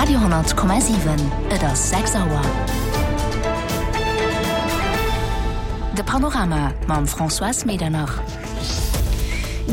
Radio,7 Et ass 6 Auer. De Panorama mam Françoise Medernach.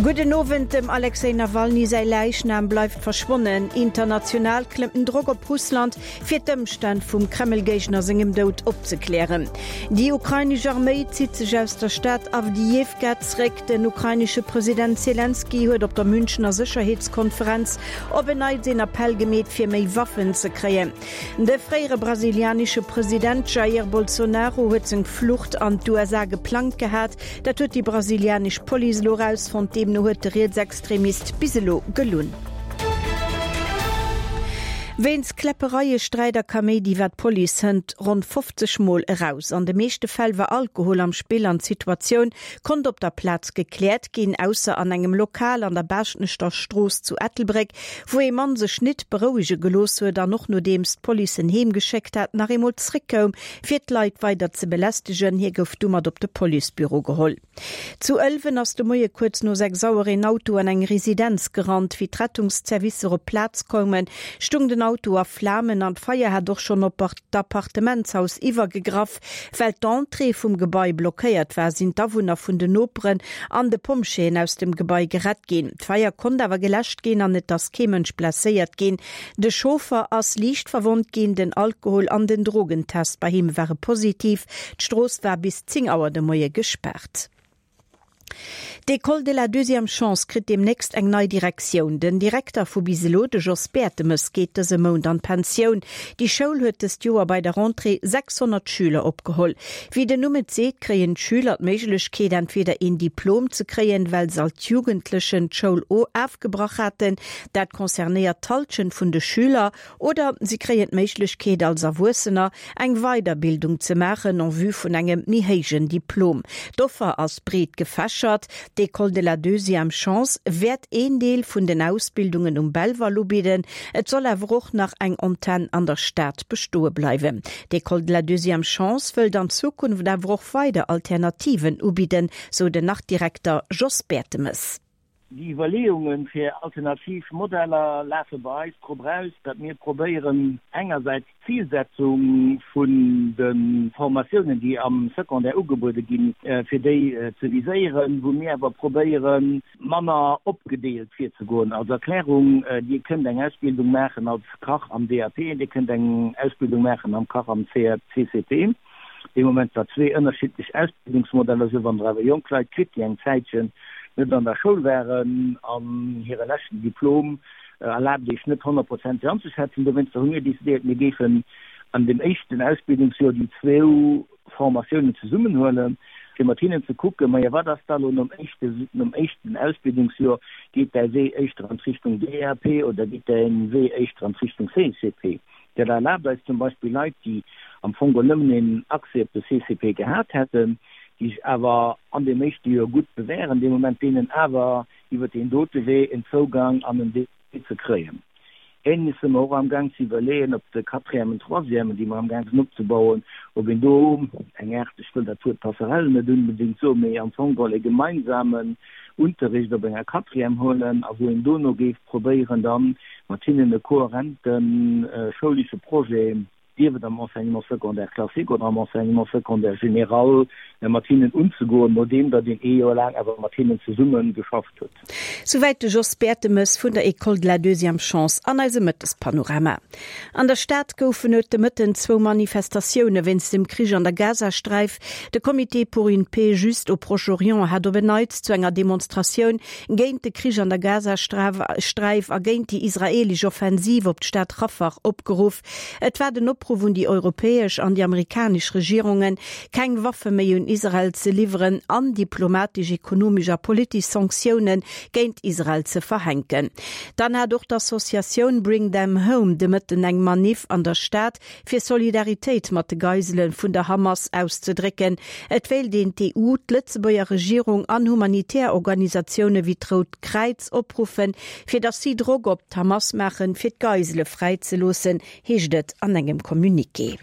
Gudden Owend, Dem Alexej Nawalny säi Läichnam bleift verschwonnen. International klëmmt den Drock op Russland, fir d'Ëmstänn vum Kreml-Géigner sengem Doud opzeklären. Déi ukrainesch Arméi zitt sech aus der Stad Awdijiwka zréck. Den ukrainesche President Selenskyj huet op der Münchener Sécherheetskonferenz op en Neits een Appell gemeet, fir méi Waffen ze kréien. De fréiere brasilianesche President Jair Bolsonaro huet seng Flucht an d'USA geplangt gehat. Dat huet déi brasilianesch Police elo erausfonnt. Deemno huet de Rietsextremist bis elo gelunn. Wéinst Kläppereie, Sträit a Kaméidi war d'Police hënt ronn 50 Mol eraus. An de meeschte Fäll war Alkohol am Spill an d'Situatioun konnt op der Plaz gekläert ginn, ausser an engem Lokal an der Baaschtnechter Strooss zu Ettelbréck, wou ee Mann sech nit berouege gelooss huet an och nodeems d'Police en heem geschéckt hat, nach eemol zréckkoum, fir d'Leit weider ze belästegen. Hie gouf du mat op de Policebüro geholl. Zu Ëlwen ass de Moie kuerz no 6 Auer een Auto an eng Residenz gerannt. Wéi d'Rettungszervicer op d'Plaz koumen, stung den Auto a Flamen an d'Feier hat och schonn op d'Appartementshaus iwwergegraff. Well d'Entrée vum Gebai blockéiert war, sinn d'Awunner vun den Noperen an de Pompjeeën aus dem Gebai gerett ginn. D'Feier konnt awer geläscht ginn an et ass kee Mënsch blesséiert ginn. De Chauffer ass liicht verwonnt ginn, den Alkohol an den Drogentest bei him ware positiv. D'Strooss war bis 10 Auer de Moie gespaart. D'École de la deuxième chance kritt deemnächst eng nei Direktioun. Den Direkter vu bis elo, de Jos Bertemes, geet dëse Mount an d'Pensioun. Déi Schoul huet dëst Joer bei der Rentrée 600 Schüler opgeholl. Wéi den Numm et seet, kréien d'Schüler d'Méiglechkeet, entweder een Diplom ze kréien, well se als Jugendlechen d'Schoul ofgebrach haten, dat concernéiert d'Hallschent vun de Schüler, Oder si kréien d'Méiglechkeet, als Erwuessener eng Weiderbildung ze maachen en vue vun engem méi héijen Diplom. D'Offer ass breet gefächert. D'École de la deuxième chance wäert een Deel vun den Ausbildungen um Belval ubidden. Et soll awer och nach eng Antenn an der Stad bestoe bleiwen. D'École de la deuxième chance wëllt an Zukunft awer och weider Alternativen ubidden, sou den Nach-Direkter Jos Bertemes. Déi Iwwerleeunge fir alternativ Modeller lafe bei eis drop eraus, datt mir probéieren, engersäits d'Zilsetzung vun de Formatiounen, déi am Secondaire ugebuede ginn, fir déi ze viséieren, wou mir awer probéieren, manner opgedeelt virzegoen. Als Erklärung, Dir kënnt eng Ausbildung maachen als Kach am DAP, Dir kënnt eng Ausbildung maachen am Kach am CCP. Dee Moment war zwee ënnerschiddlech Ausbildungsmodeller sou. Wann Der awer jonk Leit kritt, déi eng Zäitchen net an der Schoul waren an hire leschten Diplom erlaabt Iech net honnertprozenteg anzeschätzen. Dowéinster hu mir decidéiert, mir géifen an dem éischten Ausbildungsjoer déi zwou Formatiounen zesummenhuelen, fir mat hinnen ze kucken, majo wat ass da lo nom éischte, nom éischten Ausbildungsjoer, geet däi Wee éischter an d'Richtung DAP oder geet däi Wee éischter an d'Richtung CCP? Dat erlaabt eis zum Beispill Leit, déi am Fong geholl nëmmen een Accès op de CCP gehat hätten, déi sech awer an deem éischte Joer gutt bewären, dee Moment deenen awer iwwer deen dote Wee en Zougang an en DP ze kréien. Ähnleches si mer och amgaang ze iwwerleeën op de Quatrièmen, Troisièmen, déi mer amgaang sinn opzebauen, ob een do eng Aart, ech wëll dat Wuert Passerelle net unbedéngt soen, mee am Fong geholl e gemeinsamen Unterricht op enger Quatrième huelen a wou een dono géif probéieren dann mat hinnen e kohärente schoulesche Projet, sief et am Enseignement secondaire classique oder am Enseignement secondaire général, mat hinnen unzegoen, nodeem datt een ee Joer laang awer mat hinnen zesumme geschafft huet. Souwäit de Jos Bertemes vun der École de la Deuxième Chance an eisem Mëttespanorama. An der Stad goufen et de Mëtten zwou Manifestatioune wéinst dem Krich an der Gazasträif. De Comité pour une paix juste au Proche-Orient hat op en Neits zu enger Demonstratioun géint de Krich an der Gazasträif a géint déi israeelesch Offensiv op d'Stad Rafah opgeruff. Et war den Opruff un déi europäesch an déi amerikanesch Regierungen, keng Waffe méi un Israel ze liwweren an diplomatesch, ekonomesch a politesch Sanktioune géint Israel ze verhänken. Dann hat och d'Associatioun Bring Them Home de Mëtten eng Maniff an der Stad, fir Solidaritéit mat de Geisele vun der Hamas auszedrécken. Et wéilt een d'EU, d'Lëtzebuerger Regierung an humanitär Organisatioune wéi d'Rout Kräiz opruffen, fir datt si Drock op d'Hamas maachen, fir d'Geisele fräizeloossen, heescht et an engem Communiqué.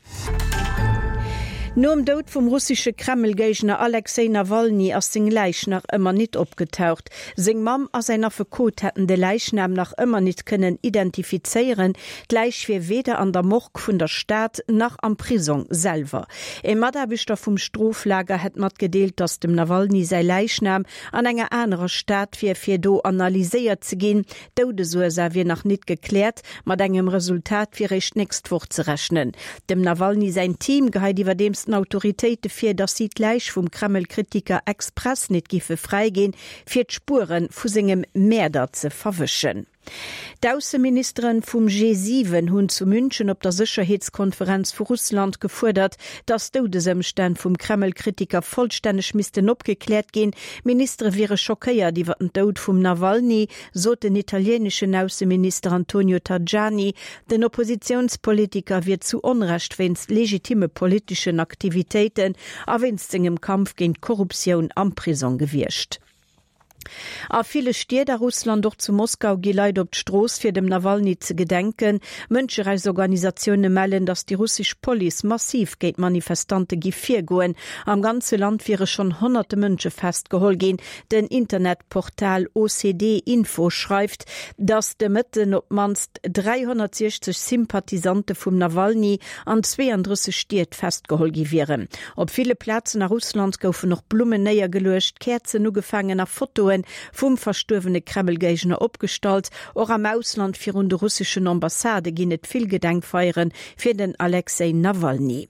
Nom Doud vum russesche Kreml-Géigner Alexej Nawalny ass seng Läich nach ëmmer nit opgetaucht. Seng Mamm a säin Affekot hätten de Läichnam nach ëmmer nit kënnen identifizéieren. D'Läich wier weder an der Morgue vun der Stad nach am Prisong selwer. E Mataarbechter vum Stroflager hätt matgedeelt, datt dem Nawalny säi Läichnam an enger anerer Stad wier, fir do analyséiert ze ginn. D'Doudesursaach wier nach nit gekläert, mat engem Resultat wier réischt d'nächst Woch ze rechnen. Dem Nawalny säin Team geheit iwwerdeems den Autoritéite vir, datt si d'Läich vum Kreml-Kritiker express nit giffe fräiginn, fir d'Spuere vu sengem Mäerder ze verwëschen. D'Ausseministeren vum G7 hunn zu München op der Sécherheetskonferenz vu Russland gefuerdert, datt d'Doudesëmstänn vum Kreml-Kritiker vollstänneg missten opgekläert ginn. D'Ministere wiere schockéiert iwwer den Doud vum Nawalny, sot den italieeneschen Ausseminister Antonio Tajani. Den Oppositiounspolitiker wier zu Onrecht wéinst legitimme politeschen Aktivitéiten a wéinst sengem Kampf géint d'Korruptioun am Prisong gewiescht. A ville Stied a Russland, och zu Moskau, gi Leit op d'Strooss, fir dem Nawalny ze gedenken. Mënscherechtsorganisatioune mellen, datt déi russesch Police massiv géint d'Manifestante giff virgoen. Am ganze Land wiere schonn honnerte Mënsche festgeholl ginn. Den Internetportal OCD Info schreift, datt de Mëtten op d'mannst 360 Sympathisante vum Nawalny an 32 Stied festgeholl gi wieren. Op ville Plazen a Russland goufen och Blummen néiergeluecht, Käerzen ugefaangen a Fotoe vum verstuerwene Kreml-Géigner opgestallt. Och am Ausland virun de russeschen Ambassade ginn et vill Gedenkfeiere fir den Alexej Nawalny.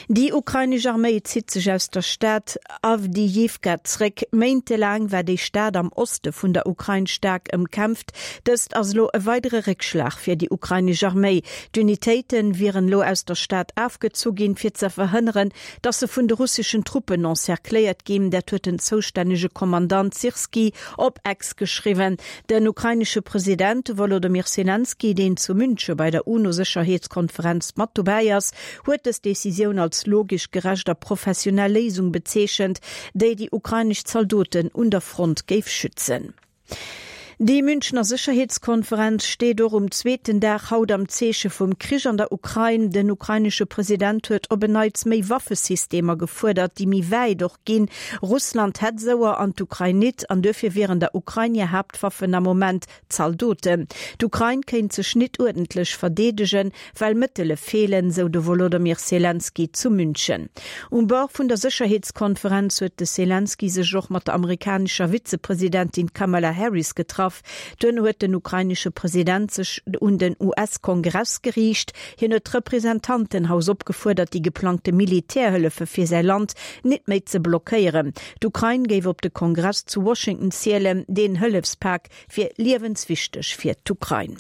Déi ukrainesch Arméi zitt sech aus der Stad Awdijiwka zréck. Méintelaang war déi Stad am Oste vun der Ukrain staark ëmkämpft. Dëst ass elo e weidere Réckschlag fir déi ukrainesch Arméi. D'Unitéite wieren elo aus der Stad afgezu ginn, fir ze verhënneren, datt se vun de russeschen Truppen encercléiert ginn. Dat huet den zoustännege Kommandant Syrskyi op X geschriwwen. Den ukrainesche President Wolodymyr Selenskyj, deen zu Münche bei der UNO-Sécherheetskonferenz mat dobäi ass, huet dës Decisioun als logesch, gerecht a professionell Léisung bezeechent, déi déi ukrainesch Zaldoten un der Front géif schützen. Déi Münchener Sécherheetskonferenz steet och um zweeten Dag haut am Zeeche vum Krich an der Ukrain. Den ukrainesche President huet op en Neits méi Waffesystemer gefuerdert, déi méi wäit och ginn. Russland hätt esouer an d'Ukrain nit an duerfir wieren der Ukrain hir Haaptwaffen am Moment Zaldoten. D'Ukrain kéint sech nit uerdentlech verdeedegen, well Mëttele feelen, sou de Wolodomyr Selenskyj zu München. Um Bord vun der Sécherheetskonferenz huet de Selenskyj sech och mat der amerikanescher Vizepresidentin Kamala Harris getraff. Duerno huet den ukrainesche President sech un den US-Kongress geriicht. Hien huet d'Representantenhaus opgefuerdert, déi geplangte Militärhëllefe fir säi Land nit méi ze blockéieren. D'Ukrain géif op de Kongress zu Washington zielen. Deen Hëllefspak wier liewenswichteg fir d'Ukrain.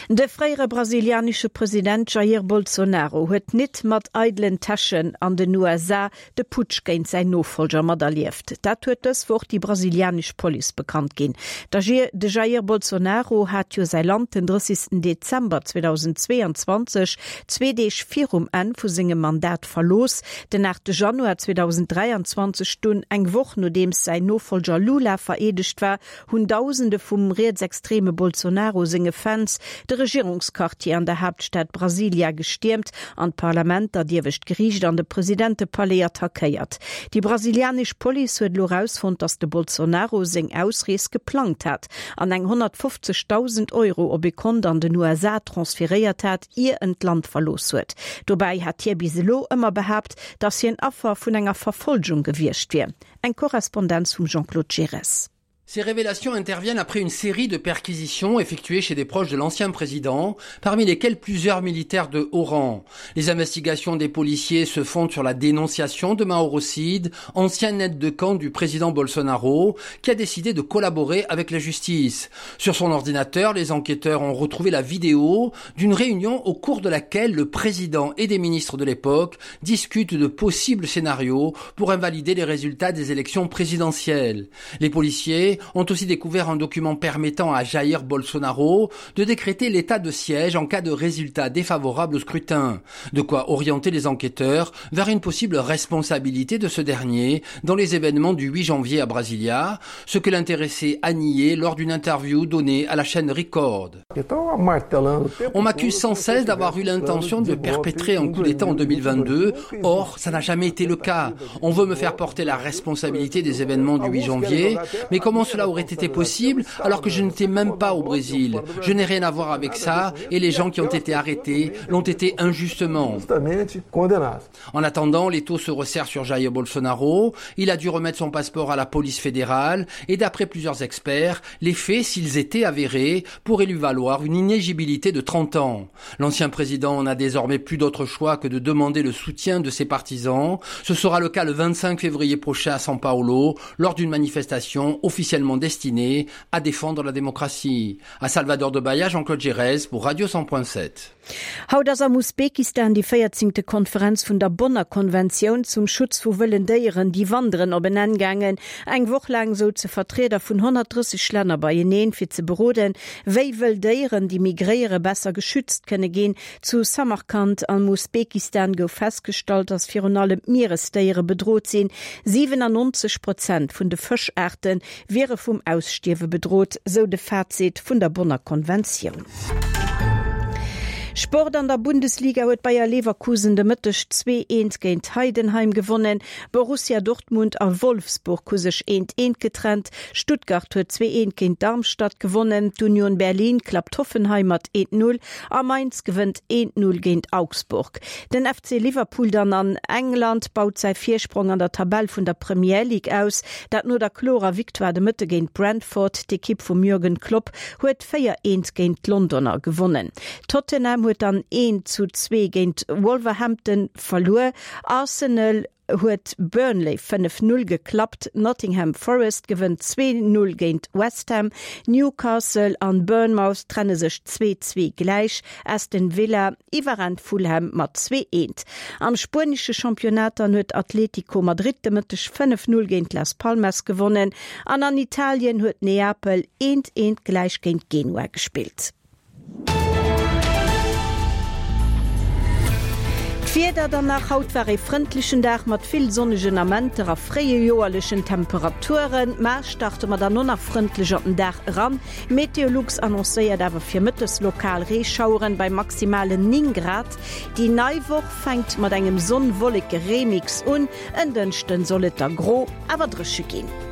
De fréiere brasilianesche President Jair Bolsonaro huet nit mat eidelen Täschen an den USA de Putsch géint säin Nofollger materlieft. Dat huet dës Woch déi brasilianesch Police bekannt ginn. De Jair Bolsonaro hat jo säi Land den 30 Dezember 2022, zwee Deeg virum Enn vu sengem Mandat, verlooss. Den 8 Januar 2023 dunn, eng Woch nodeems säin Nofollger Lula vereedegt war, hunn Dausende vum rietsextreme Bolsonaro senge Fans de Regierungsquartier an der Haaptstad Brasilia gestiermt an d'Parlament, dat iewescht Geriicht an de Presidentepalais attackéiert. Déi brasilianesch Police huet elo erausfonnt, datt de Bolsonaro seng Ausrees geplangt hat an eng 150.000 Euro op ee Kont an den USA transferéiert hat, ier en d'Land verlooss huet. Dobäi hat hie bis elo ëmmer behaapt, datt hien Affer vun enger Verfolgung gewiescht wier. Eng Korrespondenz vum Jean-Claude Giresse. Ces révélations interviennent après une série de perquisitions effectuées chez des proches de l'ancien président, parmi lesquels plusieurs militaires de haut rang. Les investigations des policiers se fondent sur la dénonciation de Mauro Cid, ancien aide de camp du président Bolsonaro, qui a décidé de collaborer avec la justice. Sur son ordinateur, les enquêteurs ont retrouvé la vidéo d'une réunion au cours de laquelle le président et des ministres de l'époque discutent de possibles scénarios pour invalider les résultats des élections présidentielles. Les policiers. policiers ont aussi découvert un document permettant à Jair Bolsonaro de décréter l'état de siège en cas de résultat défavorable au scrutin. De quoi orienter les enquêteurs vers une possible responsabilité de ce dernier dans les événements du 8 janvier à Brasilia, ce que l'intéressé a nié lors d'une interview donnée à la chaîne Record. On m'accuse sans cesse d'avoir eu l'intention de perpétrer un coup d'état en 2022. Or, ça n'a jamais été le cas. On veut me faire porter la responsabilité des événements du 8 janvier, mais comment cela aurait été possible alors que je n'étais même pas au Brésil? Je n'ai rien à voir avec ça et les gens qui ont été arrêtés l'ont été injustement. En attendant, les taux se resserrent sur Jair Bolsonaro. Il a dû remettre son passeport à la police fédérale et d'après plusieurs experts, les faits, s'ils étaient avérés, pourraient lui valoir une inégibilité de 30 ans. L'ancien président n'a désormais plus d'autre choix que de demander le soutien de ses partisans. Ce sera le cas le 25 février prochain à São Paulo, lors d'une manifestation officiellement destinée à défendre la démocratie. À Salvador de Bahia, Jean-Claude Gérez pour Radio 100.7. Haut ass am Usbekistan déi véierzéngte Konferenz vun der Bonner Konventioun zum Schutz vu wëllen Déieren, déi wanderen, op en Enn gaangen. Eng Woch laang souze Vertrieder vun 130 Länner beieneen, fir ze beroden, wéi wëll Déieren, déi migréieren, besser geschützt kënne ginn. Zu Samarkand am Usbekistan gouf festgestallt, datt virun allem d'Mieresdéiere bedrot sinn. 97 Prozent vun de Fëschaarte wiere vum Ausstierwe bedrot, sou de Fazit vun der Bonner Konventioun. Sport, An der Bundesliga huet Bayer Leverkusen de Mëtteg 2, 1 géint Heidenheim gewonnen. Borussia Dortmund a Wolfsburg hu sech 1, 1 getrennt. Stuttgart huet 2, 1 géint Darmstadt gewonnen. D'Union Berlin klappt Hoffenheim mat 1, 0 a Mainz gewënnt 1, 0 géint Augsburg. Den FC Liverpool dann an England baut säi Virsprong an der Tabell vun der Premier League aus, dat no der klorer Victoire de Mëtte géint Brentford. D'Ekipp vum Jürgen Klopp huet 4, 1 géint d'Londoner gewonnen. Tottenham huet dann 1 zu 2 géint Wolverhampton verluer. Arsenal huet Burnley 5, 0 geklappt. Nottingham Forest gewënnt 2, 0 géint West Ham. Newcastle an Bournemouth trenne sech 2, 2 gläich. Aston Villa iwwerrennt Fulham mat 2, 1. Am spuenesche Championnat dann huet Atletico Madrid de Mëtteg 5, 0 géint Las Palmas gewonnen. An an Italien huet Neapel eent eent gläich géint Genua gespillt. D'Wieder dann nach, Haut war ee frëndlechen Dag mat vill sonnegen Amenter a fréijoerlechen Temperaturen. Mar starte mer dann och nach frëndlech an den Dag eran. Meteolux annoncéiert awer fir mëttes lokal Reeschaueren bei maximalen 9 Grad. Déi nei Woch fänkt mat engem Sonn-Wolleke-Remix un. En Dënschden soll et da gro, awer dréche ginn.